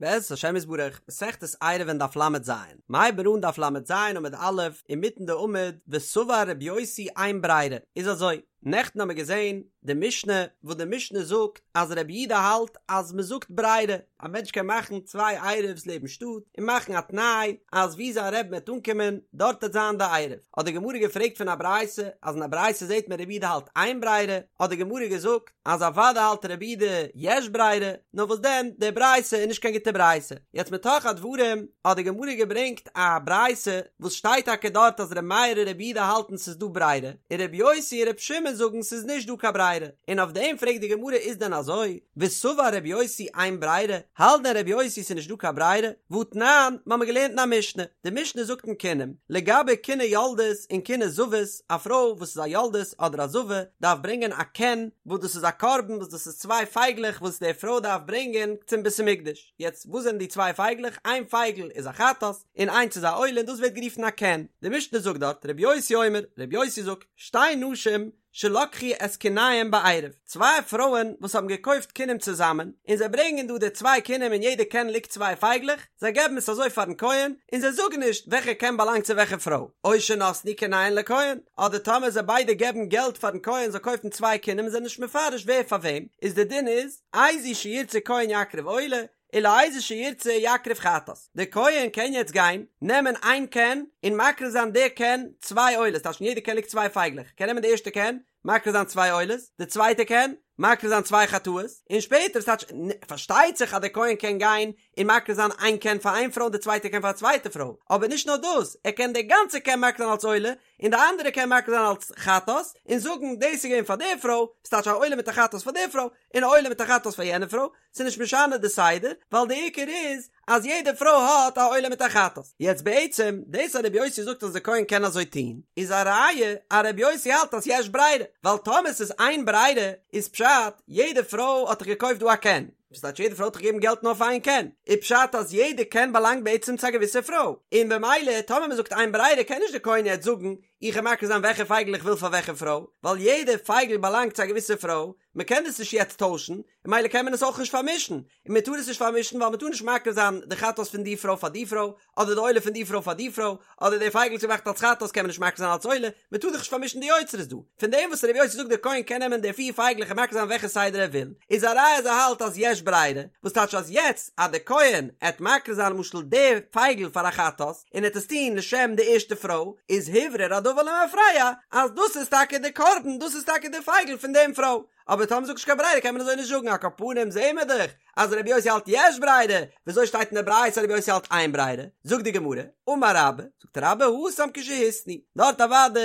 בעזרת השם יתברך, מסכת עירובין דף ל"ז, מ'הייבט אן דף ל"ז עמוד א', אינמיטן די עמוד, וסבר רבי יוסי אין ברירה, איז אזוי, נעכטן האמיר געזען די משנה, וואס די משנה זאגט אז רבי יהודה האלט אז מען זאגט ברירה, א מענטש קען מאכן צוויי עירוב'ס לעבן שטאט, און מאכן א תנאי אז וואו זיין רבי'ן וועט אנקומען, דארט וועט זיין די עירוב. האט די גמרא געפרעגט פון א ברייתא, אז אין א ברייתא זעט מען רבי יהודה האלט אין ברירה, האט די גמרא געזאגט, אז אוודאי האלט רבי יהודה יש ברירה, נאר וואס דען, די ברייתא איז נישט קיין גוטע ברייתא. יעצט מתוך הדברים האט די גמרא געברענגט א ברייתא וואס שטייט טאקע דארט אז ר' מאיר און רבי יהודה האלטן ס'איז דא ברירה, און רבי יוסי און רבי שמעון זאגן ס'איז נישט דא קיין ברירה, און אויף דעם פרעגט די גמרא איז דען אזוי? וסבר רבי יוסי אין ברירה, האלט דען רבי יוסי ס'איז נישט דא קיין ברירה? והתנן, מ'האמיר געלערנט אין א משנה, די משנה זאגט אין קינים, לגבי קיני יולדות און קיני זבות, א פרוי וואס איז א יולדת אדער א זבה דארף ברענגען א קן וואס דאס איז א קרבן וואס דאס איז צוויי פייגלעך וואס די פרוי דארף ברענגען צום בית המקדש, יעצט וואס זענען די צוויי פייגלעך? איין פייגל איז א חטאת און איינס איז א עולה און דאס ווערט גערופן א קן, די משנה זאגט דארט רבי יוסי אומר, רבי יוסי זאגט, שתי נשים שלקחו את קיניהם בעירוב, צוויי פרויען וואס האבן געקויפט קינים צוזאמען, און זיי ברענגען דא די צוויי קינים אין יעדע קן ליגט צוויי פייגלעך, זיי געבן עס אזוי פארן כהן, און זיי זאגן נישט וועלכע קן באלאנגט צו וועלכע פרוי, או שנתנו קיניהן לכהן, אדער טאמער זיי ביידע געבן געלט פארן כהן זאל קויפן צוויי קינים און זענען נישט מפרש ווער פאר וועם, איז די דין איז, איזו שירצה כהן יקריב עולה, ולאיזו שירצה יקריב חטאת, דער כהן קען יעצט גיין נעמען איין קן און מקריב זיין די קן צוויי עולות, טייטש אין יעדע קן ליגט צוויי פייגלעך, קען נעמען די ערשטע קן מקריב זיין צוויי עולות, די צווייטע קן מקריב זיין צוויי חטאות, און שפעטער ס'טייטש פארשטייט זיך אז דער כהן קען גיין און מקריב זיין איין קן פאר איין פרוי און די צווייטע קן פאר א צווייטע פרוי, אבער נישט נאר דאס, ער קען די גאנצע קן מקריב זיין אלס עולה, און די אנדערע קען מקריב זיין אלס חטאת, און זאגן דאס איז געווען פאר די פרוי, ס'טייטש א עולה מיט א חטאת פאר די פרוי, און א עולה מיט א חטאת פאר יענע פרוי, ס'איז נישט משנה די סדר, ווייל די עיקר איז אז יעדע פרוי האט א עולה מיט א חטאת. יעצט בעצם, דאס אז רבי יוסי זאגט אז די כהן קען אזוי טון, איז א ראיה אז רבי יוסי האלט אז יש ברירה, ווייל טאמער ס'איז אין ברירה, איז פשט, יעדע פרוי האט דאך געקויפט דא א קן, וואס טייטש יעדע פרוי האט דאך געגעבן געלט נאר פאר איין קן, איז פשט אז יעדע קן באלאנגט בעצם צו א געוויסע פרוי, און במילא טאמער מ'זאגט אין ברירה קען נישט די כהן יעצט זאגן איך וועל מקריב זיין וועלכע פייגל איך וויל פאר וועלכע פרוי, ווייל יעדע פייגל באלאנגט צו א געוויסע פרוי, מ'קען דאס נישט יעצט טוישן, און במילא קען מען עס אויך נישט פארמישן, און מ'טאר עס נישט פארמישן ווייל מ'טאר נישט מקריב זיין די חטאת פון די פרוי פאר די פרוי, אדער די עולה פון די פרוי פאר די פרוי, אדער די פייגל וואס געמאכט אלס חטאת קען מען נישט מקריב זיין אלס עולה, מען טאר דאך נישט פארמישן די יוצרות דא. פון דעם וואס רבי יוסי זאגט דער כהן קען נעמען די פיר פייגלעך און מקריב זיין וועלכע סדר ער וויל, איז א ראיה אז ער האלט אז יש ברירה, וואס טייטש אז יעצט אז דער כהן עט מקריב זיין למשל די פייגל פאר א חטאת, און עט עס טון לשם די ערשטע פרוי, איז הוברר הדבר למפרע אז דאס איז טאקע די קרבן, דאס איז טאקע די פייגל פון דעם פרוי. אבער טאמער מ'זאגט נישט קיין ברירה קען מען אזוי נישט זאגן, על כל פנים זעהן מיר דאך אז רבי יוסי האלט יש ברירה, וויאזוי שטייט אין די ברייתא אז רבי יוסי האלט אין ברירה? זאגט די גמרא, אמר רבה, זאגט רבה התם כשהתנו, דארט אוודאי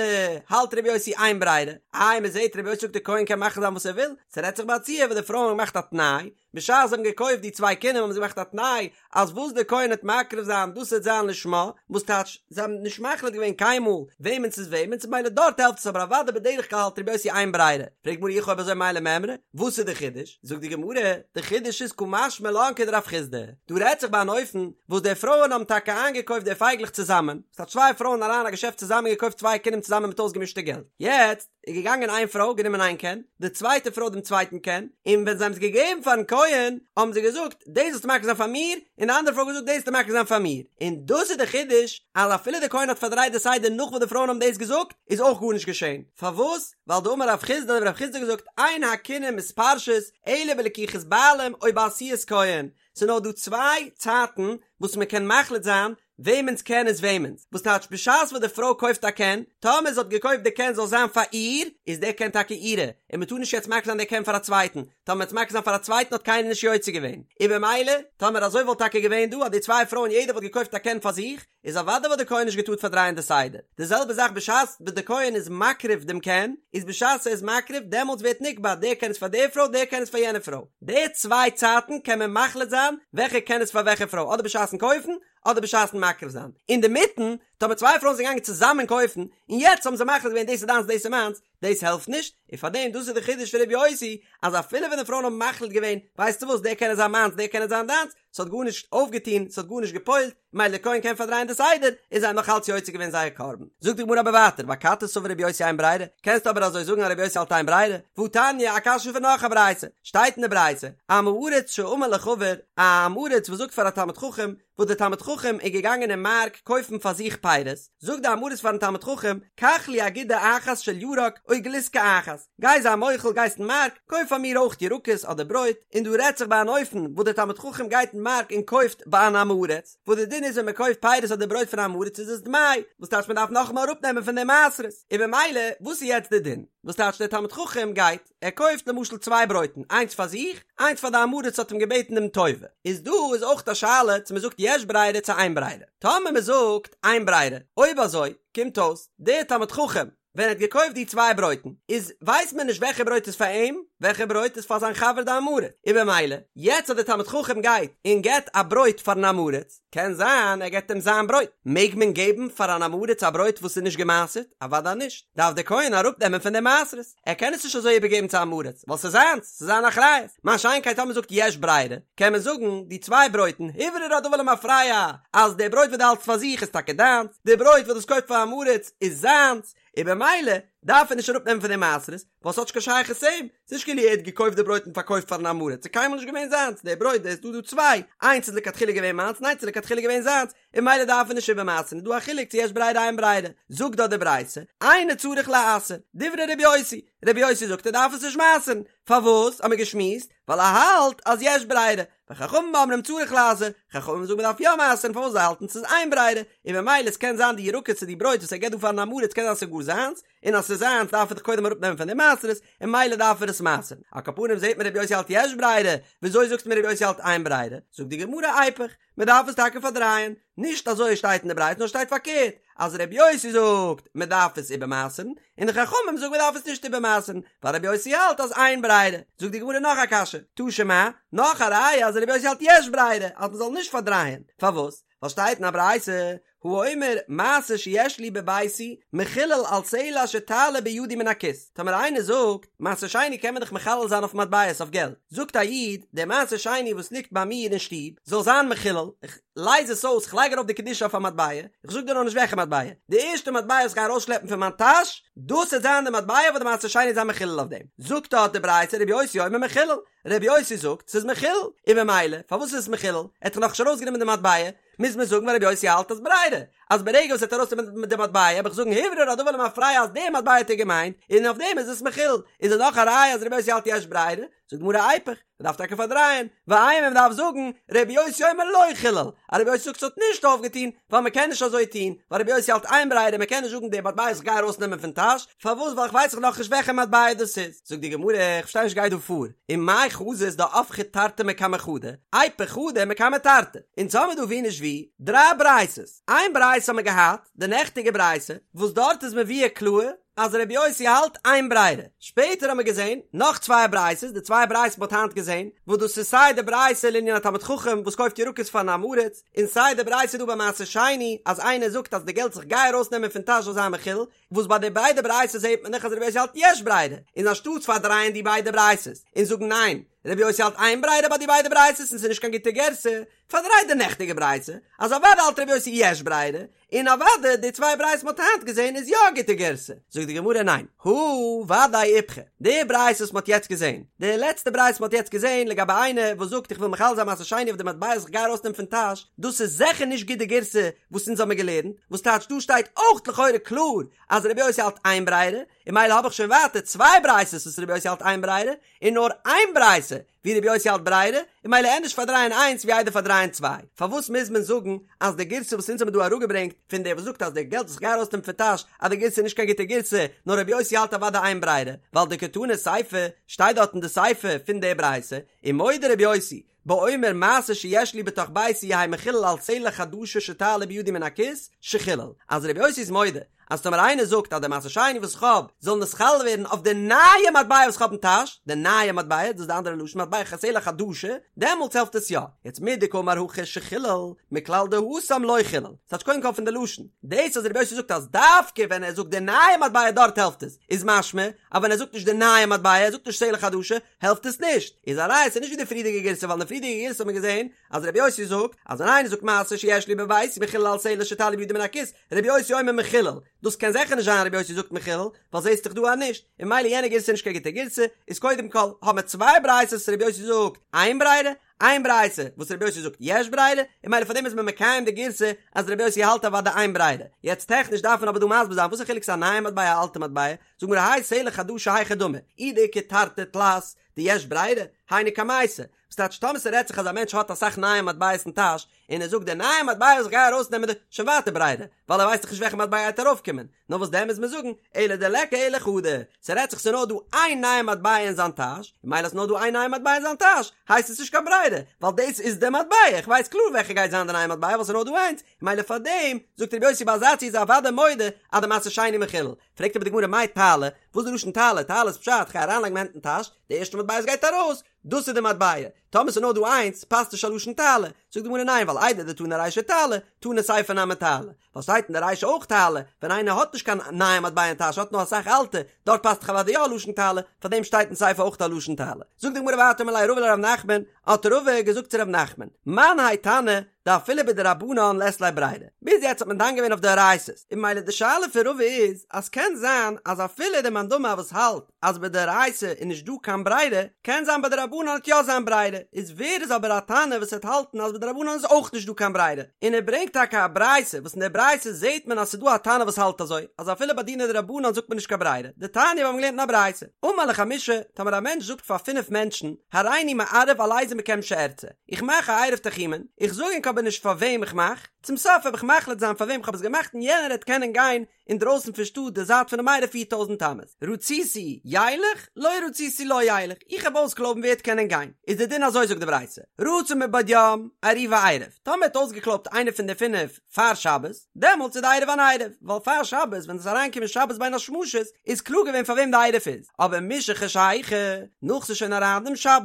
האלט רבי יוסי אין ברירה, איי מען זעהט רבי יוסי זאגט די כהן קען מאכן זיין וואס ער וויל, ס'רעדט זיך ביי א ציור וואס די פרויען האבן געמאכט א תנאי, בשעת זיי האבן געקויפט די צוויי קינים האבן זיי געמאכט א תנאי אז וואס די כהן העט מקריב זיין דאס העט זיין לשמה, וואס טייטש זיי האבן נישט מחליט געווען קיינמאל וועמענס איז וועמענס ממילא דארט העלפט עס אבער אוודאי בדרך כלל האלט רבי יוסי אין ברירה, פרעגט די גמרא אי הכי אויב אזוי מאי למימרא, וואס איז די חידוש? זאגט די גמרא, די חידוש איז קא משמע לן כדרב חסדא, דא רעדט זיך ביי אן אופן וואס די פרויען האבן טאקע איינגעקויפט די פייגלעך צוזאמען, ס'האט צוויי פרויען אריין א געשעפט צוזאמען געקויפט צוויי קינים צוזאמען מיט אויסגעמישטע געלט, יעצט איז געגאנגען איין פרוי גענומען איין קן, די צווייטע פרוי דעם צווייטן קן, און ווען זיי האבן עס געגעבן פארן כהן, האבן זיי געזאגט, דאס זאלסטו מקריב זיין פאר מיר, און די אנדערע פרוי האט געזאגט, דאס זאלסטו מקריב זיין פאר מיר, און דאס איז די חידוש, אז אפילו דער כהן האט פארדרייט די סדר נאך וואס די פרויען האבן דאס געזאגט, איז אויך גארנישט געשען, פארוואס? ווייל דאמר רב חסדא האט רב חסדא געזאגט, אין הקינים מתפרשות, אלא בלקיחת בעלים או בעשיית כהן, ס'איז נאר דא צוויי צייטן וואס מען קען מחליט זיין וועמענס קן איז וועמענס, וואס טייטש בשעת וואס די פרוי קויפט א קן, טאמער זי האט געקויפט די קן זאל זיין פאר איר, איז די קן טאקע אירע, און מען טאר נישט יעצט מקריב זיין די קן פאר א צווייטן, טאמער מ'וועט מקריב זיין פאר א צווייטן האט קיינער נישט יוצא געווען, און במילא, טאמער אזוי וואלט טאקע געווען דא אז די צוויי פרויען יעדער וואלט געקויפט א קן פאר זיך, איז אוודאי וואלט די כהן נישט געטארט פארדרייען די סדר, די זעלבע זאך בשעת וואס די כהן איז מקריב דעם קן, איז בשעת ער איז מקריב דעמאלטס ווערט נקבע דער קן איז פאר די פרוי דער קן איז פאר יענע פרוי, די צוויי צייטן קען מען מחליט זיין וועלכע קן איז פאר וועלכע פרוי אדער בשעת'ן קויפן אדער בשעת'ן מקריב זיין, אינדערמיטן. טאמער צוויי פרויען זענען געגאנגען צוזאמען קויפן, און יעצט האבן זיי מחליט געווען דאס איז דיינס דאס איז מיינס, דאס העלפט נישט, און פארדעם דאס איז די חידוש פון ר' יוסי, אז אפילו ווען די פרויען האבן מחליט געווען, ווייסטו וואס, דער קען זיין מיינס דער קען זיין דיינס, ס'האט גארנישט אויפגעטון, ס'האט גארנישט גע'פועל'ט, מילא דער כהן קען פארדרייען די סדר, און זיי האבן נאך אלץ יוצא געווען זייער קרבן. זאגט די גמרא אבער ווייטער, ואכתי סבר רבי יוסי אין ברירה, קענסטו אבער אזוי זאגן אז רבי יוסי האלט אין ברירה? והתניא, א קשיא פון נאך א ברייתא, שטייט אין די ברייתא, עם הארץ שאמר לחבר, א עם הארץ וואס זאגט פאר א תלמיד חכם, וואס דער תלמיד חכם איז געגאנגען אין מארק קויפן פאר זיך פירות, זאגט די עם הארץ פארן תלמיד חכם, קח לי אגודה אחת של ירק או גלוסקא אחת, גיי זיי מוחל גייסט אין מארק, קויף פאר מיר אויך ירקות אדער ברויט, און דא רעדט זיך ביי אן אופן וואס דער תלמיד חכם גייט אין מארק און קויפט ביי אן עם הארץ, וואס די דין איז ווען מען קויפט פירות אדער ברויט פון עם הארץ איז עס דמאי, וואס טייטש מען דארף נאכאמאל אראפנעמען פון די מעשרות, און במילא וואס איז יעצט די דין? וואס טייטש דער תלמיד חכם גייט, ער קויפט למשל צוויי ברויטן, איינס פאר זיך, איינס פאר די עם הארץ האט אים געבעטן דעם טובה, איז דא איז אויך א שאלה צו מען זאגט יש ברירה צו אין ברירה, טאמער מען זאגט אין ברירה, אויב אזוי קומט אויס דער תלמיד חכם ווען ער האט געקויפט די צוויי ברויטן איז ווייסט מען נישט וועלכע ברויט איז פאר אים וועלכע ברויט איז פאר זיין חבר די עם הארץ, און במילא יעצט אז דער תלמיד חכם גייט און געבט א ברויט פארן עם הארץ, קען זיין ער געבט אים זיין ברויט, מעג מען געבן פאר אן עם הארץ א ברויט וואס איז נישט געמעשרט? אוודאי נישט, דארף דער כהן אראפנעמען פון די מעשרות, ער קען עס נישט אזוי איבערגעבן צו עם הארץ, ווייל ס'איז זיינס, ס'איז זיין אחריות, מה שאין כן טאמער מ'זאגט יש ברירה, קען מען זאגן, די צוויי ברויטן, הוברר הדבר למפרע, אז די ברויט וואס דו האלטסט פאר זיך איז טאקע דיינס, די ברויט וואס דו האסט געקויפט פאר עם הארץ איז זיינס, און במילא דארף ער נישט אראפנעמען פון די מעשרות, ווייל ס'האט נישט קיין שייכות צו אים, ס'איז נישט כאילו ער האט געקויפט די ברויט און פארקויפט פארן עם הארץ, ס'איז קיינמאל נישט געווען זיינס, די ברויט איז דא דא צוויי, איינס איז לכתחילה געווען מיינס און איינס איז לכתחילה געווען זיינס, און ממילא דארף ער נישט איבערמעשר'ן, איז דא א חילוק צו יש ברירה אין ברירה, זאגט דארט די ברייתא, אינו צריך לעשר, דברי רבי יוסי, רבי יוסי זאגט ער דארף עס נישט מעשר'ן, פארוואס האמיר געשמועסט, ווייל ער האלט אז יש ברירה, וחכמים אומרים צריך לעשר, חכמים זאגן מ'דארף יא מעשר'ן פארוואס זיי האלטן ס'איז אין ברירה, און ממילא עס קען זיין די ירקות צו די ברויט וואס ער געבט דא פארן עם הארץ קען זיין ס'איז גאר זיינס, און אז ס'איז זיינס דארף ער דאך קודם אראפנעמען פון די מעשרות, און ממילא דארף ער עס מעשר'ן. על כל פנים זעט מען רבי יוסי האלט יש ברירה, וויאזוי זאגסטו מיר רבי יוסי האלט אין ברירה? זאגט די גמרא איפוך, מען דארף עס טאקע פארדרייען, נישט אזוי שטייט אין די ברייתא נאר שטייט פארקערט, אז רבי יוסי זאגט מען דארף עס איבערמעשר'ן, און די חכמים זאגן מען דארף עס נישט איבערמעשר'ן, ווייל רבי יוסי האלט אז אין ברירה. זאגט די גמרא נאך א קשיא, תא שמע, נאך א ראיה אז רבי יוסי האלט יש ברירה, אז מען זאל נישט פארדרייען, פארוואס? ווייל שטייט אין א ברייתא, האומר מעשר שיש לי בביתי מחולל על סלע שתעלה בידי מן הכיס, טאמער איינער זאגט, מעשר שני קען מען דאך מחלל זיין אויף מטבעות אויף געלט, זאגט א איד, דער מעשר שני וואס ליגט ביי מיר אין שטוב זאל זיין מחולל, איך לייז עס אויס, איך לייג ארויף די קדושה אויף א מטבע, איך זאג דיר נאך נישט וועלכע מטבע, די ערשטע מטבע וואס איך גיי ארויסשלעפן פון מיין טאש, דאס וועט זיין די מטבע וואס די מעשר שני וועט זיין מחולל אויף דעם, זאגט דארט די ברייתא רבי יוסי אומר מחולל, רבי יוסי זאגט ס'איז מחולל, און ממילא פארוואס איז עס מחולל? ער האט דאך נאכנישט ארויסגענומען די מטבע, מוז מען זאגן ווייל רבי יוסי האלט אז ברירה, אז ברגע וואס ער האט ארויסגענומען די מטבע האב איך זאגן הוברר הדבר למפרע אז די מטבע האט ער געמיינט, און אויף דעם איז עס מחולל, איז עס נאך א ראיה אז רבי יוסי האלט יש ברירה? זאגט די גמרא איפוך, מ'דארף טאקע פארדרייען, ואימא מ'דארף זאגן רבי יוסי אומר לא חילל, אז רבי יוסי זאגט ס'האט נישט אויפגעטון, ווייל מ'קען נישט אזוי טון, ווייל רבי יוסי האלט אין ברירה מ'קען נישט זאגן די מטבע וואס איך גיי ארויסנעמען פון טאש, פארוואס ווייל איך ווייס דאך נאכנישט וועלכע מטבע דאס איז, זאגט די גמרא איך פארשטיי נישט גייט דא פאר, ומאי חזית דהפכי תרתי מקמי חדא, איפוך חדא מקמי תרתי, אונז האמיר דא ווי נישט ווי דריי ברייתות, איין ברייתא האמיר געהאט, די נעכטיגע ברייתא, וואס דארט איז מבואר קלאר אז רבי יוסי האלט אין ברירה, שפעטער האמיר געזען נאך צוויי ברייתות, די צוויי ברייתות מ'האט היינט געזען, וואס דאס איז סיי די ברייתא לענין א תלמיד חכם וואס קויפט ירקות פארן עם הארץ, און סיי די ברייתא דא ביי מעשר שני אז איינער זאגט אז די געלט וואס איך גיי ארויסנעמען פון טאש זאל זיין מחולל, וואס ביי די ביידע ברייתות זעט מען דאך אז רבי יוסי האלט יש ברירה, און אנשטאטס פארדרייען די ביידע ברייתות און זאגן ניין, רבי יוסי האלט אין ברירה ביי די ביידע ברייתות און ס'איז נישט קיין גוטע גירסא, פארדריי די נעכטיגע ברייתא אז אוודאי האלט רבי יוסי יש ברירה, און אוודאי די צוויי ברייתות מ'האט היינט געזען איז יא א גוטע גירסא. זאגט די גמרא ניין, הא ודאי איפכא, די ברייתא וואס מ'האט יעצט געזען, די לעצטע ברייתא מ'האט יעצט געזען לגבי איינער וואס זאגט איך וויל מחלל זיין מעשר שני אויף די מטבע וואס איך גיי ארויסנעמען פון טאש, דאס איז זיכער נישט גוט די גירסא וואס אונז האמיר געלערנט, וואס טייטש דא שטייט אויך לכאורה קלאר אז רבי יוסי האלט אין ברירה, און ממילא האב איך שוין ווייטער צוויי ברייתות וואס רבי יוסי האלט אין ברירה, און נאר איין ברייתא ווי רבי יוסי האלט ברירה, און ממילא ענדערש פארדרייען איינס ווי איידער פארדרייען צוויי. פארוואס מוז מען זאגן אז די גירסא וואס אונז האמיר דא אראפגעברענגט פון דער וואס זאגט אז די געלט וואס איך גיי ארויסנעמען פון טאש אז די גירסא איז נישט קיין גוטע גירסא, נאר רבי יוסי האלט אוודאי אין ברירה, ווייל דקתני סיפא שטייט דארט אין די סיפא פון די ברייתא, ומודה רבי יוסי. באומר מעשר שיש לי בתוך ביתי יהא מחולל על סלע חדשה שתעלה בידי מן הכיס, שחילל, אז רבי יוסי איז מודה אז טאמער איינער זאגט אז די מעשר שני וואס איך האב זאל נתחלל ווערן אויף די נייע מטבע וואס איך האב אין טאש, די נייע מטבע, דאס איז די אנדערע לשון מטבע סלע חדשה, דעמאלטס העלפט עס יא. יעצט מדקאמר הכא שחילל, מכלל דהתם לא חילל. ס'טייטש קודם כל פון די לשון. דאס אז רבי יוסי זאגט אז דווקא ווען ער זאגט די נייע מטבע דארט העלפט עס, איז משמע אז ווען ער זאגט נישט די נייע מטבע, ער זאגט נישט סלע חדשה, העלפט עס נישט. איז א ראיה ס'איז נישט ווי די פריערדיגע גירסא ווייל אין די פריערדיגע גירסא האט מען געזען אז רבי יוסי זאגט אז ווען איינער זאגט מעשר שיש לי בביתי מחולל על סלע שתעלה בידי מן הכיס, רבי יוסי אומר מחולל, דאס קען זיכער נישט זיין רבי יוסי זאגט מחולל, ווייל זעהסט דאך דא אז נישט, און ממילא יענע גירסא איז נישט קיין גוטע גירסא, איז קודם כל האבן מיר צוויי ברייתות וואס רבי יוסי זאגט אין ברירה, איין ברייתא וואס רבי יוסי זאגט יש ברירה, און ממילא פאר דעם איז מען מקיים די גירסא אז רבי יוסי האלט אוודאי אין ברירה, יעצט טעכניש דארף מען אבער דא מסביר זיין וואס איז חילוק ס'איז א נייע מטבע א אלטע מטבע, זאגט גמרא האי סלע חדשה היכי דמי, אי דאיכא תרתי תלת דיש ברירה, היינו קמייתא, וואס טייטש טאמער ס'רעדט זיך אז א מענטש האט אסאך נייע מטבעות אין טאש, און ער זאגט די נייע מטבע וואס איך גיי ארויסנעמען די, שוין ווייטער ברירה, ווייל ער ווייסט דאך נישט וועלכע מטבע גייט ארויפקומען, נאר וואס דען מוז מען זאגן, אלא דליכא אלא חדא, ס'רעדט זיך ס'נאר דא איין נייע מטבע אין זיין טאש, און ממילא אז ס'נאר דא איין נייע מטבע אין זיין טאש, הייסט עס נישט קיין ברירה, ווייל דאס איז די מטבע, איך ווייס קלאר וועלכע גייט זיין די נייע מטבע ווייל ס'נאר דא איינס, און ממילא פארדעם זאגט רבי יוסי ביי אזא ציור איז ער אוודאי מודה אז די מעשר שני מחולל, פרעגט אבער די גמרא מאי תעלה, וואס איז די לשון תעלה, תעלה איז פשט, כ'גיי אריינלייגן מיין הענט אין טאש, די ערשטע מטבע וואס גייט ארויס, דאס איז די מטבע, טאמער ס'איז נאר דא איינס, פאסט נישט א לשון תעלה, זאגט די גמרא ניין ווייל איידי דתנא רישא תעלה, תנא סיפא נמי תעלה, ווייל שטייט אין די רישא אויך תעלה, ווען איינער האט נישט קיין נייע מטבע אין טאש האט נאר אסאך אלטע, דארט פאסט דאך אוודאי יא א לשון תעלה, פארדעם שטייט אין סיפא אויך א לשון תעלה. זאגט די גמרא ווייטער אמר ליה רבא לרב נחמן, האט רבא געזאגט צו רב נחמן, מאן האי תנא דאפילו בדרבנן לית ליה ברירה, ביז יעצט האט מען דן געווען אויף דאורייתא'ס, און ממילא די שאלה פון רבא איז אז קען זיין אז אפילו די מאן דאמר וואס האלט אז בדאורייתא איז נישט דא קיין ברירה, קען זיין ביי דרבנן וועט יא זיין ברירה, איז ווער איז אבער א תנא וואס וועט האלטן אז בדרבנן איז אויך נישט דא קיין ברירה, און ער ברענגט טאקע א ברייתא וואס אין דער ברייתא זעט מען אז ס'איז דא א תנא וואס האלט אזוי, אז אפילו ביי דיני דרבנן זאגט מען נישט קיין ברירה, דתניא מיר האבן געלערנט אין א ברייתא, אמר לחמישה, טאמער א מענטש זאגט פאר פינף מענטשן, הריני מערב על איזה מכם שארצה, איך מאך א עירוב תחומין, איך זאג ענק אבער נישט פאר וועם איך מאך, צום סוף וועל איך מחליט זיין פאר וועם איך האב עס געמאכט און יענער העט קענען גיין אינדרויסן פון שטאט די זייט פונעם עירוב פיר טויזנט אמות, רציתי ילך, לא רציתי לא ילך, איך האב אויסקלויבן ווער העט קענען גיין, איז די דין אזוי זאגט די ברייתא, רצה מבעוד יום, עירובו עירוב, טאמער האט אויסגעקלויבט איינער פון די פינף פאר שבת, דעמאלטס איז די עירוב אן עירוב, ווייל פאר שבת ווען עס איז אריינגעקומען שבת בין השמשות איז קלאר געווען פאר וועם די עירוב איז, אבער משחשיכה, נאך ס'איז שוין אריין דעם שבת,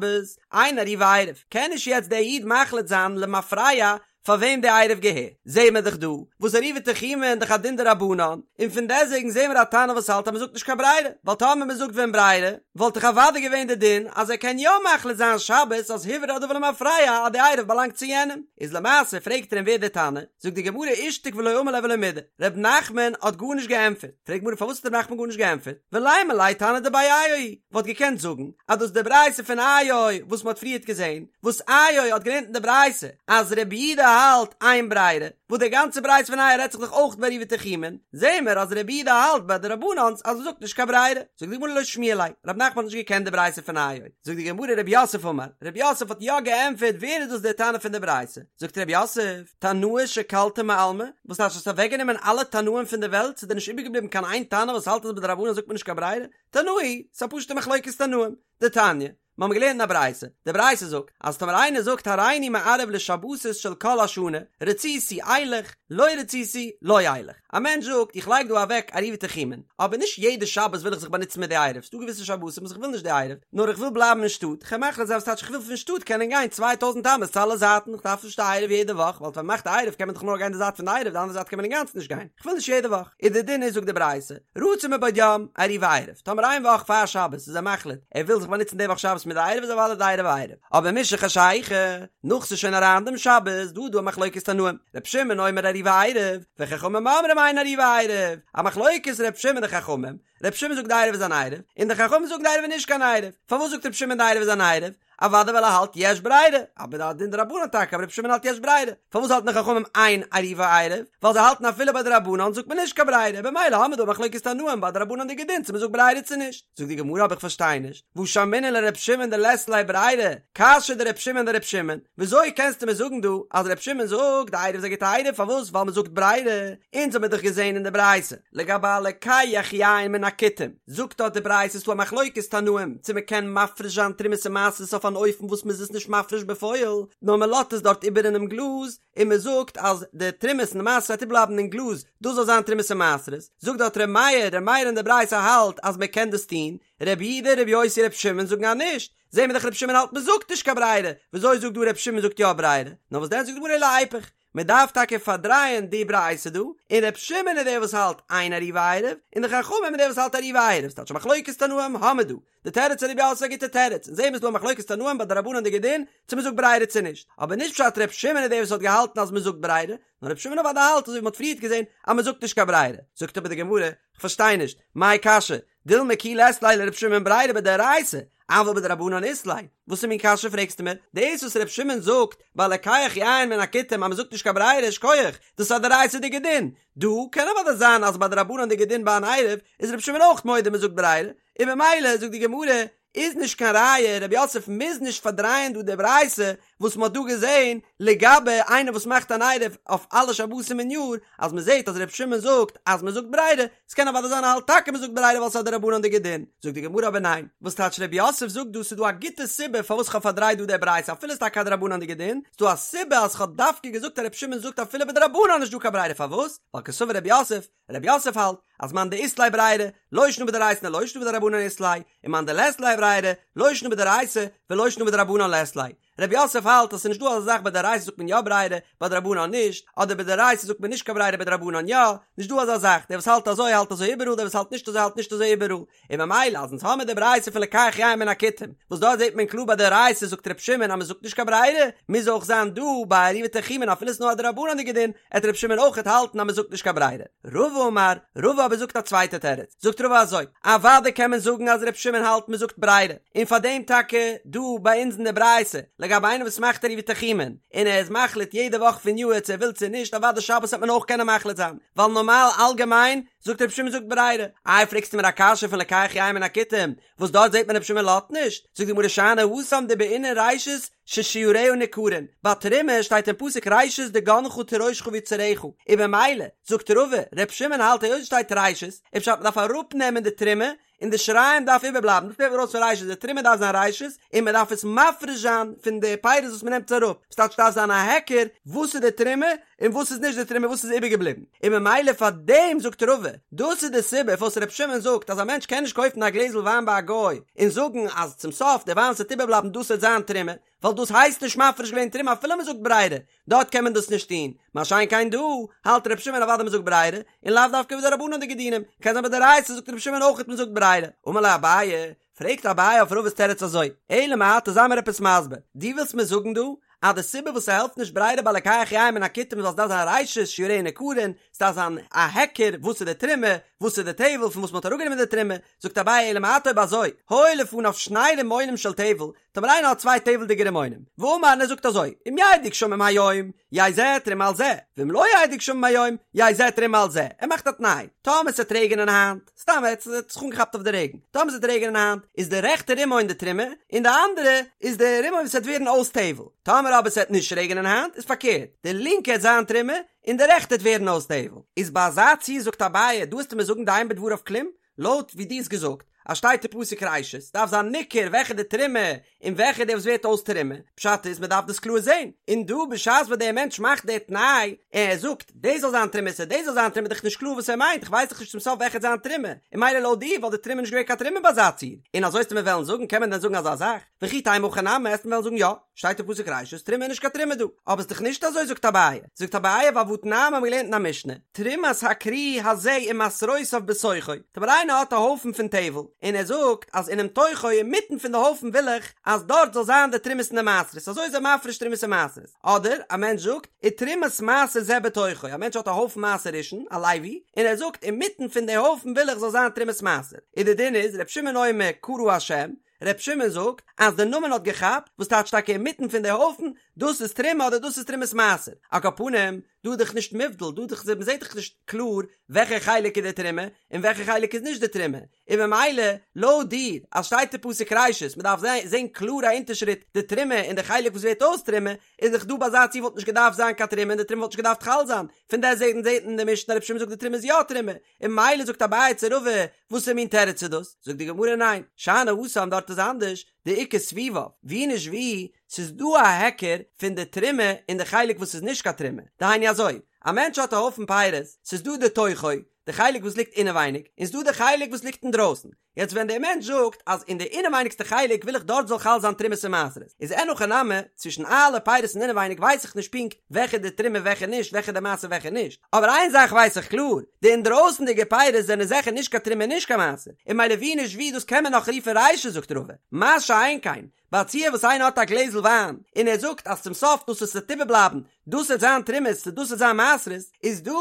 אין עירובו עירוב, קען נישט יעצט דער איד מחליט זיין למפרע פאר וועם די עירוב געהערט, זעהן מיר דאך דא וואס עירובי תחומין דאך א דין דרבנן, און פון דעסוועגן זעהן מיר א תנא וואס האלט אז מען זאגט נישט קיין ברירה, ווייל טאמער מען זאגט ווען ברירה, וואלט דאך אוודאי געווען די דין אז ער קען יא מחליט זיין שבת אז הוברר הדבר למפרע אז די עירוב באלאנגט צו יענעם, איז למעשה פרעגט ער אים ווער די תנא, זאגט די גמרא אישתיק ולא אמר ליה ולא מידי, ר' נחמן האט גארנישט געענטפערט, פרעגט גמרא פארוואס האט ר' נחמן גארנישט געענטפערט, ולימא ליה תנא דבי איו היא, וואלט געקענט זאגן אז דאס איז די ברייתא פון איו וואס מען האט פריערט געזען, וואס איו האט געלערנט אין די ברייתא אז רבי יהודה האלט אין ברירה, וואס די גאנצע ברייתא פון איו רעדט זיך דאך אויך ביי עירובי תחומין, זעהן מיר אז רבי יהודה האלט ביי דרבנן'ס אז מען זאגט נישט קיין ברירה, זאגט די גמרא לא שמיע ליה, רב נחמן האט נישט געקענט די ברייתא פון איו, זאגט די גמרא רב יוסף אמר, רב יוסף האט יא געענטפערט ווער איז דאס דער תנא פון די ברייתא, זאגט רב יוסף, תנאי שקלת מעלמא, וואס טייטש האסט אוועקגענומען אלע תנאים פון די וועלט, ס'איז דיר נישט איבערגעבליבן קיין איין תנא וואס האלט אז בדרבנן זאגט מען נישט קיין ברירה, תנאי, ס'איז א פשוטע מחלוקת תנאים, דתניא, מיר האבן געלערנט אין א ברייתא, די ברייתא זאגט, אז טאמער איינער זאגט הריני מערב לשבתות של כל השנה, רציתי אלך, לא רציתי לא אלך. א מענטש זאגט, איך לייג דא אוועק עירובי תחומין, אבער נישט יעדע שבת וויל איך זיך באנוצן מיט די עירוב, ס'דא געוויסע שבתים וואס איך וויל נישט די עירוב, נאר איך וויל בלייבן אין שטאט, כ'קען מחליט זיין וואס טייטש איך וויל פון שטאט קענען גיין 2000 אמות צו אלע זייטן, איך דארף נישט די עירוב יעדע וואך, ווייל ווען מ'מאכט די עירוב קען מען דאך נאר גיין די זייט פון די עירוב, די אנדערע זייט קען מען אינגאנצן נישט גיין, איך וויל נישט יעדע וואך. איז די דין איז זאגט די ברייתא, רצה מבעוד יום, עירובו עירוב, טאמער איין וואך פאר שבת איז ער מחליט ער וויל זיך באנוצן די וואך שבת מיט די עירוב איז אוודאי די עירוב א עירוב, אבער משחשיכה, נאך ס'איז שוין אריין דעם שבת, דא איז דא א מחלוקת תנאים, ר' שמעון אומר עירובו עירוב, וחכמים אומרים אין עירובו עירוב, א מחלוקת ר' שמעון די חכמים, ר' שמעון זאגט די עירוב איז אן עירוב, און די חכמים זאגן די עירוב איז נישט קיין עירוב, פארוואס זאגט ר' שמעון די עירוב איז אן עירוב? אוודאי ווייל ער האלט יש ברירה, אבער א דין דרבנן טאקע, אבער רבי שמעון האלט יש ברירה, פארוואס האלטן די חכמים אין עירובו עירוב? ווייל זיי האלטן אפילו ביי דרבנן זאגט מען נישט קיין ברירה, במילא האמיר דא א מחלוקת תנאים ביי דרבנן'דיגע דין צו מען זאגט ברירה צו נישט. זאגט די גמרא אבער איך פארשטיי נישט, והא שמעינן לר' שמעון דלית ליה ברירה, קשיא דר' שמעון דר' שמעון, וויאזוי קענסטו מיר זאגן דא אז ר' שמעון זאגט די עירוב איז א גוטע עירוב פארוואס ווייל מען זאגט ברירה, אונז האמיר דאך געזען אין די ברייתא לגבי הלוקח יין מן הכלי. הכותים, זאגט דארט די ברייתא ס'איז דא א מחלוקת תנאים צו מ'קען מפריש זיין תרומות און מעשרות אויף אן אופן וואס מ'איז עס נישט מפריש בפועל, נאר מ'לאזט עס דארט איבער אינעם גלאז, און מ'זאגט אז די תרומות און די מעשרות וועט איבערבלייבן אין גלאז, דאס זאל זיין תרומות און מעשרות, זאגט דארט ר' מאיר, ר' מאיר אין די ברייתא האלט אז מ'קען דאס טון, ר' יהודה, ר' יוסי, ר' שמעון זאגן אז נישט, זעהן מיר דאך ר' שמעון האלט מ'זאגט נישט קיין ברירה, וויאזוי זאגט דא ר' שמעון זאגט יא ברירה? נאר וואס דען זאגט די גמרא אלא איפוך, מען דארף טאקע פארדרייען די ברייתא דא, און ר' שמעון איז דער וואס האלט אין עירובו עירוב, און די חכמים איז דער וואס האלט עירובו עירוב, ס'טייטש א מחלוקת תנאים האמיר דא, די תירוץ פון ר' יוסף איז א גוטע תירוץ, און זעהן מיר ס'דא א מחלוקת תנאים ביי דרבנן'דיגע דין צו מ'זאגט ברירה צו נישט, אבער נישט פשט ר' שמעון איז דער וואס האט געהאלטן אז מ'זאגט ברירה, נאר ר' שמעון אוודאי האלט אזוי ווי מ'האט פריערט געזעהן אז מ'זאגט נישט קיין ברירה, זאגט אבער די גמרא, כ'פארשטיי נישט, מאי קשיא, דילמא כי לית ליה לר' שמעון ברירה בדאורייתא, אבל בדרבנן אית ליה, וואסער מין קשיא פרעגסטו מיר? דאס וואס ר' שמעון זאגט ביי לוקח יין מן הכותים אז מ'זאגט נישט קיין ברירה שכוח, דאס איז א דאורייתא'דיגע דין, דא קען אוודאי זיין אז ביי דרבנן'דיגע דין ביי אן עירוב איז ר' שמעון אויך מודה מ'זאגט ברירה, און במילא זאגט די גמרא איז נישט קיין ראיה ר' יוסף מוז נישט פארדרייען דא די ברייתא וואס מ'האט דא געזען לגבי איינער וואס מאכט אן עירוב אויף אלע שבתים אין יאר אז מ'זעט אז ר' שמעון זאגט אז מ'זאגט ברירה, ס'קען אוודאי זיין ער האלט טאקע מ'זאגט ברירה ווייל ס'איז א דרבנן'דיגע דין, זאגט די גמרא אבער ניין, וואס טייטש ר' יוסף זאגט דא ס'איז דא א גוטע סיבה פארוואס כ'האב פארדרייט דא די ברייתא אפילו ס'איז טאקע א דרבנן'דיגע דין, ס'איז דא א סיבה אז כ'האב דווקא געזאגט אז ר' שמעון זאגט אפילו בדרבנן נישט דא קיין ברירה פארוואס? ווייל קסבר ר' יוסף, ר' יוסף האלט אז מאן דאית ליה ברירה, לא שנא בדאורייתא לא שנא בדרבנן אית ליה, און מאן דלית ליה ברירה, לא שנא בדאורייתא ולא שנא בדרבנן לית ליה. ר' יוסף האלט אז ס'איז נישט דא אזא זאך ביי דאורייתא זאגט מען יא ברירה, ביי דרבנן נישט, אדער ביי דאורייתא זאגט מען נישט קיין ברירה ביי דרבנן יא, נישט דא אזא זאך, דער וואס האלט אזוי האלט אזוי איבעראל דער וואס האלט נישט אזוי האלט נישט אזוי איבעראל, און ממילא אז אונז האמיר די ברייתא פון לוקח יין מן הכותים, וואס דארט זעט מען קלאר ביי דאורייתא זאגט ר' שמעון אז מ'זאגט נישט קיין ברירה, מוז אויך זיין דא ביי עירובי תחומין אפילו ס'נאר א דרבנן'דיגע דין, עט ר' שמעון אויכעט האלטן אז מ'זאגט נישט קיין ברירה. רבא אמר, רבא אבער זאגט א צווייטע תירוץ, זאגט רבא אזוי, אוודאי קען מען זאגן אז ר' שמעון האלט מ'זאגט ברירה, און פאר דעם טאקע דא ביי אונז אין די ברייתא, לגבי איינער וואס מאכט עירובי תחומין, און ער איז מחליט יעדע וואך פון יאהר צו ער וויל צו נישט, אוודאי שבת וועט מען אויך קענען מחליט זיין, ווייל נארמאל אלגעמיין זאגט ר' שמעון זאגט ברירה, איי פרעגסטו מיר א קשיא פון לוקח יין מן הכותים, וואס דארט זעט מען ר' שמעון לאזט נישט, זאגט די גמרא שאני התם דבעינן ראשית ששיריה ניכרין, ביי תרומה שטייט אין פסוק ראשית דגנך תירושך ויצהרך, און במילא, זאגט רבא, ר' שמעון האלט היות עס שטייט ראשית, איז פשט מ'דארף אראפנעמען די תרומה, און די שיריים דארף איבערבלייבן, דאס נעמט מען ארויס פון ראשית, די תרומה דארף זיין ראשית, און מען דארף עס מפריש זיין פון די פירות וואס מען נעמט עס אראפ, ס'טייטש דארף זיין א היכר וואס איז די תרומה און וואס איז נישט די תרומה וואס איז איבערגעבליבן, און ממילא פאר דעם זאגט רבא, דאס איז די סיבה פארוואס ר' שמעון זאגט אז א מענטש קען נישט קויפן א גלעזל וויין ביי א גוי און זאגן אז צום סוף די וויין וואס וועט איבערבלייבן דאס וועט זיין תרומה, ווייל דאס הייסט נישט מפריש געווען תרומה אפילו מען זאגט ברירה, דארט קען מען דאס נישט טון, מה שאין כן דא, האלט ר' שמעון אוודאי מען זאגט ברירה, און לאו דווקא בדרבנן'דיגע דינים, קען זיין בדאורייתא זאגט ר' שמעון אויכעט מען זאגט ברירה. אמר ליה אביי, פרעגט אביי אויף רבא'ס תירוץ אזוי, אלא מעתה זיי מיר עפעס מסביר, דו ווילסט מיר זאגן דא אז די סיבה וואס ס'העלפט נישט ברירה ביי לוקח יין מן הכותים איז ווייל ס'דארף זיין ראשית שיריה ניכרין, ס'דארף זיין א היכר וואס איז די תרומה, וואס איז די טבל פון וואס מ'האט אראפגענומען די תרומה, זאגט אביי אלא מעתה אויב אזוי, היו לפניו שני רימונים של טבל, טאמער איינער האט צוויי טבל'דיגע רימונים, ואמר און ער זאגט אזוי, אם ירדו גשמים היום, יהא זה תרומה על זה, ואם לא ירדו גשמים היום, יהא זה תרומה על זה, ער מאכט א תנאי, טאמער ס'עט רעגענען היינט, סתם ער האט זיך אנגעכאפט אויף די רעגן, טאמער ס'עט רעגענען היינט, איז די רעכטע רימון די תרומה, און די אנדערע איז די רימון וואס וועט ווערן אויס טבל, טאמער אבער ס'עט נישט רעגענען היינט, איז פארקערט, די לינקע עט זיין תרומה, און די רעכטע עט ווערן אויס טבל. איז ביי אזא ציור זאגט אביי, דא וועסטו מיר זאגן דאין בדבריו כלום? לויט ווי דו האסט געזאגט אז שטייט אין פסוק ראשית דארף זיין ניכר וועלכע די תרומה און וועלכע די וואס ווערט אויס תרומה, פשט איז מען דארף דאס קלאר זען, און דא בשעת וואס דער מענטש מאכט די תנאי און ער זאגט דאס זאל זיין תרומה צו דאס זאל זיין תרומה איז דאך נישט קלאר וואס ער מיינט איך ווייס דאך נישט צום סוף וועלכע וועט זיין תרומה, און ממילא לויט דיר וואלט די תרומה נישט געווען קיין תרומה ביי אזא ציור, און אזוי וועסטו מיר וועלן זאגן קען מען דען זאגן אזא זאך? וכי תימא הכי נמי וועסטו מיר וועלן זאגן יא, שטייט אין פסוק ראשית תרומה איז נישט קיין תרומה דא, אבער ס'דאך נישט אזוי זאגט אביי, זאגט אביי ווייל והתנן האבן מיר געלערנט אין א משנה, תרומת הכרי הזה ומעשרותיו בתוכו, טאמער איינער האט א הויפן פון טבל, און ער זאגט אז אינעם תוכו אינמיטן פון די הויפן וויל איך אז דארט זאל זיין די תרומות און די מעשרות, אזוי איז ער מפריש תרומות און מעשרות, אדער א מענטש זאגט ותרומת מעשר זה בתוכו, א מענטש האט א הויפן מעשר ראשון, א לוי, און ער זאגט אינמיטן פון די הויפן וויל איך זאל זיין תרומת מעשר, און די דין איז ר' שמעון אומר קרא השם, ר' שמעון זאגט אז די נאמען האט געכאפט, וואס טייטש טאקע אינמיטן פון די הויפן, דאס איז תרומה אדער דאס איז תרומת מעשר. על כל פנים, דא איז דאך נישט מובדל, דא איז דאך, מ'זעט דאך נישט קלאר וועלכע חלק איז די תרומה און וועלכע חלק איז נישט די תרומה, און ממילא לויט דיר אז שטייט אין פסוק ראשית מ'דארף זען קלאר א אונטערשריט די תרומה און די חלק וואס ווערט אויס תרומה, איז דאך דא ביי אזא ציור וואלט נישט געדארפט זיין קיין תרומה און די תרומה וואלט נישט געדארפט חל זיין, פון דעסטוועגן זעט מען אין די משנה רבי שמעון זאגט די תרומה איז יא תרומה, און ממילא זאגט אביי צו רבא וואסער מין תירוץ איז דאס? זאגט די גמרא ניין, שאני התם דארט איז אנדערש, דאיכא סביביו, ווי נישט ווי, ס'איז דא א היכר פון די תרומה און די חלק וואס איז נישט קיין תרומה, דהיינו אזוי, א מענטש האט א הויפן פירות, ס'איז דא די תוכו, די חלק וואס ליגט אינעווייניג, און ס'דא די חלק וואס ליגט אינדרויסן, יעצט ווען דער מענטש זאגט אז אין די אינעווייניגסטע חלק וויל איך דארט זאל חל זיין תרומות און מעשרות, איז אין הכי נמי, צווישן אלע פירות אין אינעווייניג ווייס איך נישט פונקט וועלכע די תרומה וועלכע נישט, וועלכע די מעשר וועלכע נישט, אבער איין זאך ווייס איך קלאר, די אינדרויסנדיגע פירות זענען זיכער נישט קיין תרומה און נישט קיין מעשר, און ממילא ווי נישט ווי דאס קען מען נאך רופן רישא זאגט רבא, מה שאין כן, ביי א ציור וואס איינער האט א גלעזל וויין און ער זאגט אז צום סוף דאס וואס עס וועט איבערבלייבן דאס וועט זיין תרומות צו דאס וועט זיין מעשרות, איז דא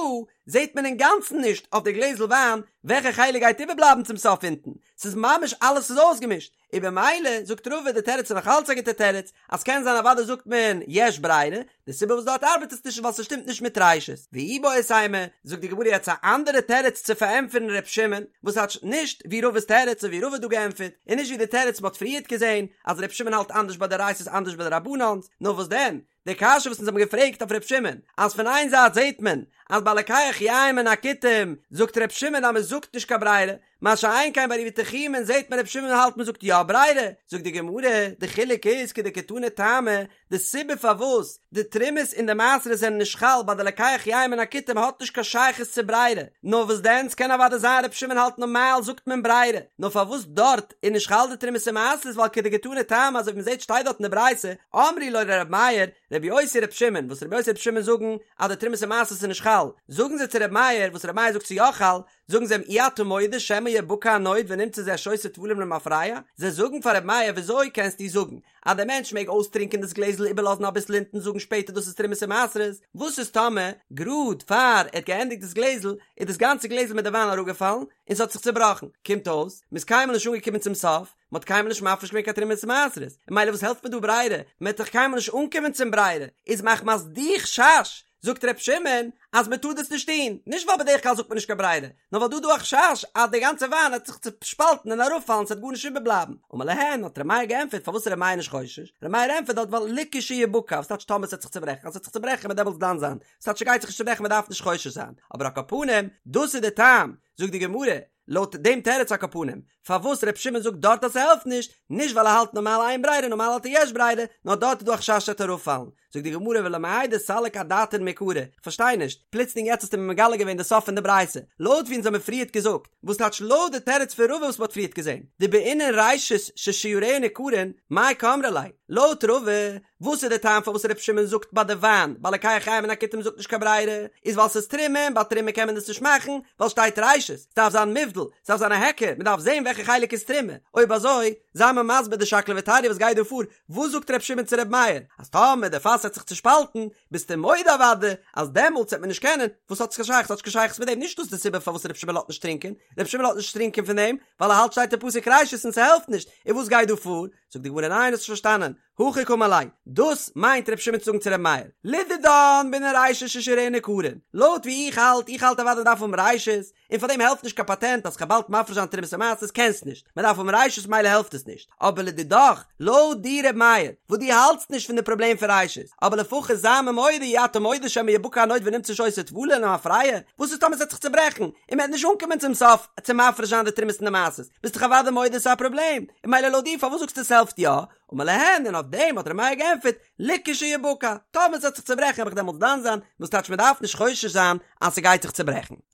זעט מען אינגאנצן נישט אויף די גלעזל וויין וועלכע חלק גייט איבערבלייבן צום סוף אונטן, ס'איז ממש אלעס איז אויסגעמישט, און במילא זאגט רבא די תירוץ איז נאך אלץ א גוטע תירוץ, אז קען זיין אוודאי זאגט מען יש ברירה, די סיבה וואס דארט ארבעט עס נישט איז ווייל ס'שטימט נישט מיט ראשית. ואיבעית אימא, זאגט די גמרא יעצט א אנדערע תירוץ צו פארענטפערן ר' שמעון, וואס טייטש נישט ווי רבא'ס תירוץ און ווי רבא האט דא געענטפערט, און נישט ווי די תירוץ מ'האט פריערט געזען אז ר' שמעון האלט אנדערש ביי דאורייתא'ס אנדערש ביי דרבנן'ס, נאר וואס דען? די קשיא וואס אונז האבן געפרעגט אויף ר' שמעון, אז פון איין זייט זעט מען אז ביי לוקח יין מן הכותים זאגט ר' שמעון אז מ'זאגט נישט קיין ברירה, מה שאין כן ביי עירובי תחומין זעט מען ר' שמעון האלט מ'זאגט יא ברירה, זאגט די גמרא, די חילוק איז כדקתני טעמא, די סיבה פארוואס די תרומות און די מעשרות זענען נישט חל ביי די לוקח יין מן הכותים האט נישט קיין שייכות צו ברירה, נאר וואס דען ס'קען אוודאי זיין ר' שמעון האלט נארמאל זאגט מען ברירה, נאר פארוואס דארט איז נישט חל די תרומות און מעשרות ווייל כדקתני טעמא אזוי ווי מ'זעט שטייט דארט אין די ברייתא אמרו לו לר' מאיר רבי יוסי ר' שמעון וואס רבי יוסי ר' שמעון זאגן אז די תרומות און מעשרות איז נישט חל זאגן זיי צו ר' מאיר וואס ר' מאיר זאגט ס'איז יא חל זאגן זיי אים אי אתה מודה שמא יבקע הנוד ונמצא זה שותה טבלים למפרע זיי זאגן פאר ר' מאיר וויאזוי קענסטו זאגן אז דער מענטש מעג אויסטרינקען דאס גלעזל איבערלאזן אביסל אונטן זאגן שפעטער דאס איז תרומות און מעשרות, וואס איז טאמער גראד פאר ער האט געענדיגט דאס גלעזל איז דאס גאנצע גלעזל מיט די וויין אראפגעפאלן און ס'האט זיך צובראכן, קומט אויס מ'איז קיינמאל נישט אנגעקומען צום סוף, מ'האט קיינמאל נישט מפריש געווען קיין תרומות און מעשרות, און ממילא וואס העלפט מיר דא ברירה, מ'וועט דאך קיינמאל נישט אנקומען צום ברירה, איז מחמת די חשש זאגט ר' שמעון אז מען טאר דאס נישט טון, נישט ווייל בדרך כלל זאגט מען נישט קיין ברירה, נאר ווייל דא איז דא א חשש אז די גאנצע וויין וועט זיך צושפאלטן און אראפפאלן ס'וועט גארנישט איבערבלייבן. אמר להן, האט ר' מאיר געענטפערט, פארוואס איז ר' מאיר נישט חושש? ר' מאיר ענטפערט דארט ווייל לכשיבקע, וואס טייטש טאמער ס'וועט זיך צוברעכן, אז ס'וועט זיך צוברעכן וועט דעמאלטס דן זיין, ס'טייטש ס'גייט זיך נישט צוברעכן מען דארף נישט חושש זיין, אבער על כל פנים, דאס איז די טעם, זאגט די גמרא, לויט דעם תירוץ על כל פנים, פארוואס ר' שמעון זאגט דארט אז ס'העלפט נישט, נישט ווייל ער האלט נארמאל אין ברירה נארמאל האלט ער יש ברירה, נאר דארט איז דא א חשש ס'וועט אראפפאלן. זאגט די גמרא ולמאי דסליק אדעתין מעיקרא, כ'פארשטיי נישט, פלוצלינג יעצט האסטו מיר מגלה געווען די סוף פון די ברייתא, לויט ווי אונז האמיר פריערט געזאגט, וואס טייטש לויט די תירוץ פון רבא וואס מ'האט פריערט געזען, דבעינן ראשית ששיריה ניכרין, מאי קאמרי ליה, לויט רבא, וואס איז די טעם פארוואס ר' שמעון זאגט ביי די וויין, ביי לוקח יין מן הכותים זאגט נישט קיין ברירה, איז ווייל ס'איז תרומה און ביי תרומה קען מען דאס נישט מאכן, ווייל שטייט ראשית, ס'דארף זיין מובדל, ס'דארף זיין א היכר, מ'דארף זען וועלכע חלק איז תרומה, אויב אזוי, זיי מיר מסביר די שקלא וטריא וואס גייט דא פאר, וואס זאגט ר' שמעון צו ר' מאיר, אז טאמער די פאס וועט זיך צושפאלטן, ביסטו מודה אוודאי אז דעמאלטס וועט מען נישט קענען, וואס האט עס קיין שייכות, ס'האט נישט קיין שייכות מיט דעם, נישט דאס די סיבה פארוואס ר' שמעון לאזט נישט טרינקען, ר' שמעון לאזט נישט טרינקען פון דעם, ווייל ער האלט שטייט אין פסוק ראשית און ס'העלפט נישט, און וואס גייט דא פאר? זאגט די גמרא ניין האסט נישט פארשטאנען, הכי קאמר ליה, דאס מיינט ר' שמעון צו זאגן צו ר' מאיר, לדידן בעינן ראשית ששיריה ניכרין, לויט ווי איך האלט, איך האלט אוודאי דארף האבן ראשית, און פאר דעם העלפט נישט קיין פאטענט אז כ'וועל באלד מפריש זיין תרומות ומעשרות, קענסט נישט, מען דארף האבן ראשית מילא העלפט עס נישט, אבער לדידך, לויט דיר ר' מאיר, וואס דו האלטסט נישט פון די פראבלעם פון ראשית, אבער לפחות זיי מיר מודה אי אתה מודה שמא יבקע הנוד ונמצא שותה טבלין למפרע, וואס איז טאמער ס'וועט זיך צוברעכן, און מ'וועט נישט אנקומען צום סוף צו מפריש זיין די תרומות און די מעשרות, ביסט דאך אוודאי מודה ס'איז א פראבלעם, און מילא לויט דיר פארוואס זאגסטו ס'העלפט יא? אמר להן, און אויף דעם האט ר' מאיר געענטפערט, לכשיבקע, טאמער ס'וועט זיך צוברעכן וועל איך דעמאלטס דן זיין, וואס טייטש מ'דארף נישט חושש זיין אז ס'גייט זיך צוברעכן.